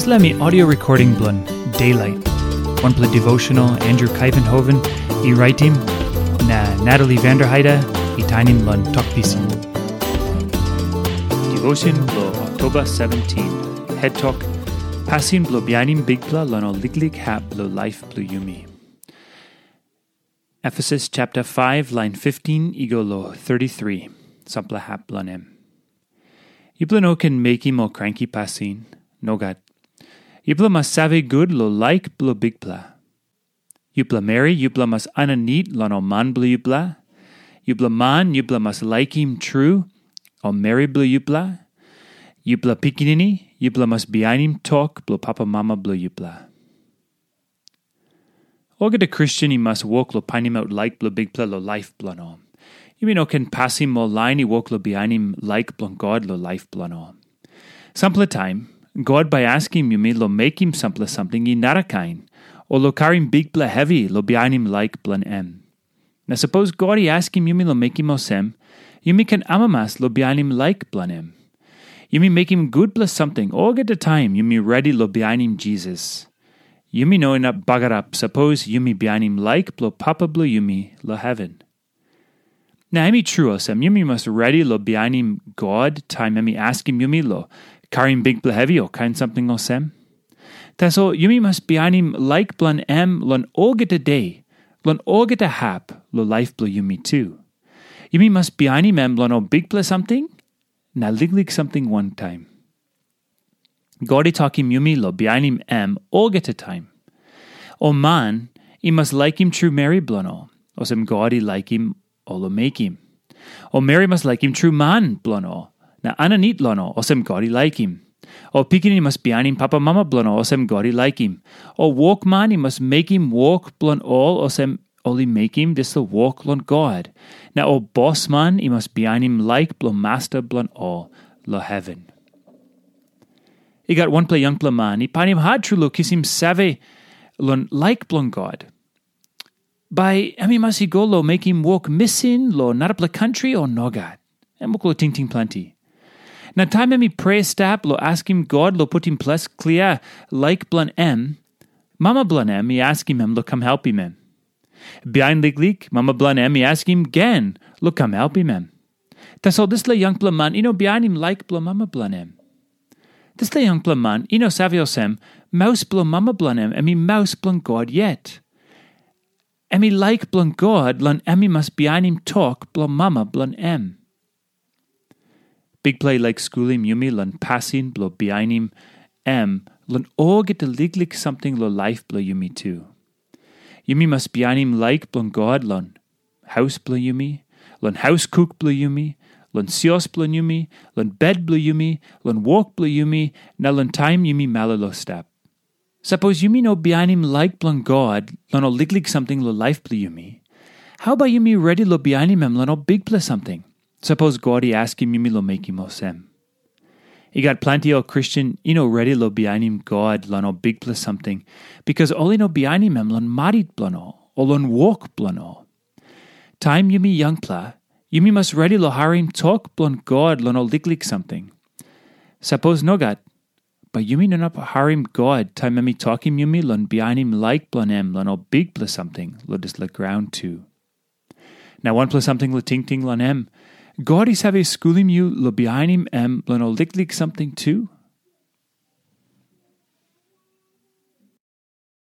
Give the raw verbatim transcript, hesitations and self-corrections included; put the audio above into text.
Dispela mi audio recording bilong Daylight, wanpela devotional Andrew Kaivenhoven i raitim, na Natalie Vanderheide i tainim long Tok Pisin. Devotion bilong Oktoba seventeen, head tok, pasin bilong bihainim Bikpela long ol liklik hap bilong laip bilong yumi. Efesus chapter five, line fifteen i go long thirty-three, sampela hap bilong em. Yupela no ken mekim ol kranki pasin, nogat. Yupela mas save gut long laik bilong Bikpela. Yupela meri, yupela mas aninit long ol man bilong yupela. Yupela man, yupela mas laikim tru ol meri bilong yupela. Yupela pikinini, yupela mas bihainim tok bilong papa mama bilong yupela. Olgeta Kristen i mas wok long painimaut laik bilong Bikpela long laip bilong ol. Yumi no ken pasim ol lain i wok long bihainim laik bilong God long laip bilong ol. Sampela taim, God bai askim yumi long mekim sampela samting i narakain, o long karim bikpela hevi long bihainim laik bilong em. Na sapos God i askim yumi long mekim olsem, yumi ken amamas long bihainim laik bilong em. Yumi mekim gutpela samting olgeta taim yumi redi long bihainim Jisas. Yumi no inap bagarap sapos yumi bihainim laik bilong Papa bilong yumi long heven. Na em i tru olsem, yumi mas redi long bihainim God taim em i askim yumi long karim bikpela hevi o kain samting olsem. Tasol yumi mas bihainim laik bilong em long olgeta de, long olgeta hap long laip bilong yumi tu. Yumi mas bihainim em long ol bikpela samting na liklik samting wantaim. God i tokim yumi long bihainim em olgeta taim. Ol man i mas laikim tru meri bilong ol, olsem God i laikim ol long mekim. Ol meri mas laikim tru man bilong ol, na aninit long ol, olsem God i laikim. Ol pikinini mas bihainim papa mama bilong ol, olsem God i laikim. Ol wokman i mas mekim wok bilong ol, olsem ol i mekim dispela wok long God. Na ol bosman i mas bihainim laik bilong masta bilong ol long heven. I gat wanpela yangpela man i painim hat tru long kisim save long laik bilong God. Bai em i mas i go long mekim wok misin long narapela kantri o nogat? Em wok long tingting planti. Na taim em i prea stap long askim God long putim ples klia laik bilong em, mama bilong em i askim em long kam helpim em. Bihain liklik, mama bilong em i askim gen long kam helpim em. Tasol dispela yangpela man i no bihainim laik bilong mama bilong em. Dispela yangpela man i no save olsem, maus bilong mama bilong em, em i maus bilong God yet. Em i laik bilong God long em i mas bihainim tok bilong mama bilong em. Bikpela i laik skulim yumi long pasin bilong bihainim em long olgeta liklik samting long laip bilong yumi tu. Yumi mas bihainim laik bilong God long haus bilong yumi, long haus kuk bilong yumi, long sios bilong yumi, long bet bilong yumi, long wok bilong yumi, na long taim yumi malolo stap. Sapos yumi no bihainim laik bilong God long ol liklik samting long laip bilong yumi, hau bai yumi redi long bihainim em long ol bikpela samting? Sapos God i askim yumi long mekim olsem. I gat planti ol Kristen i no redi long bihainim God long ol bikpela samting, bikas ol i no bihainim em long marit bilong ol, o long wok bilong ol. Taim yumi yangpela, yumi mas redi long harim tok bilong God long ol liklik samting. Sapos nogat, bai yumi no inap harim God taim em i tokim yumi long bihainim laik bilong em long ol bikpela samting long dispela graun tu. Na wanpela samting long tingting long em, God i save skulim yu long bihainim em long ol liklik samting tu.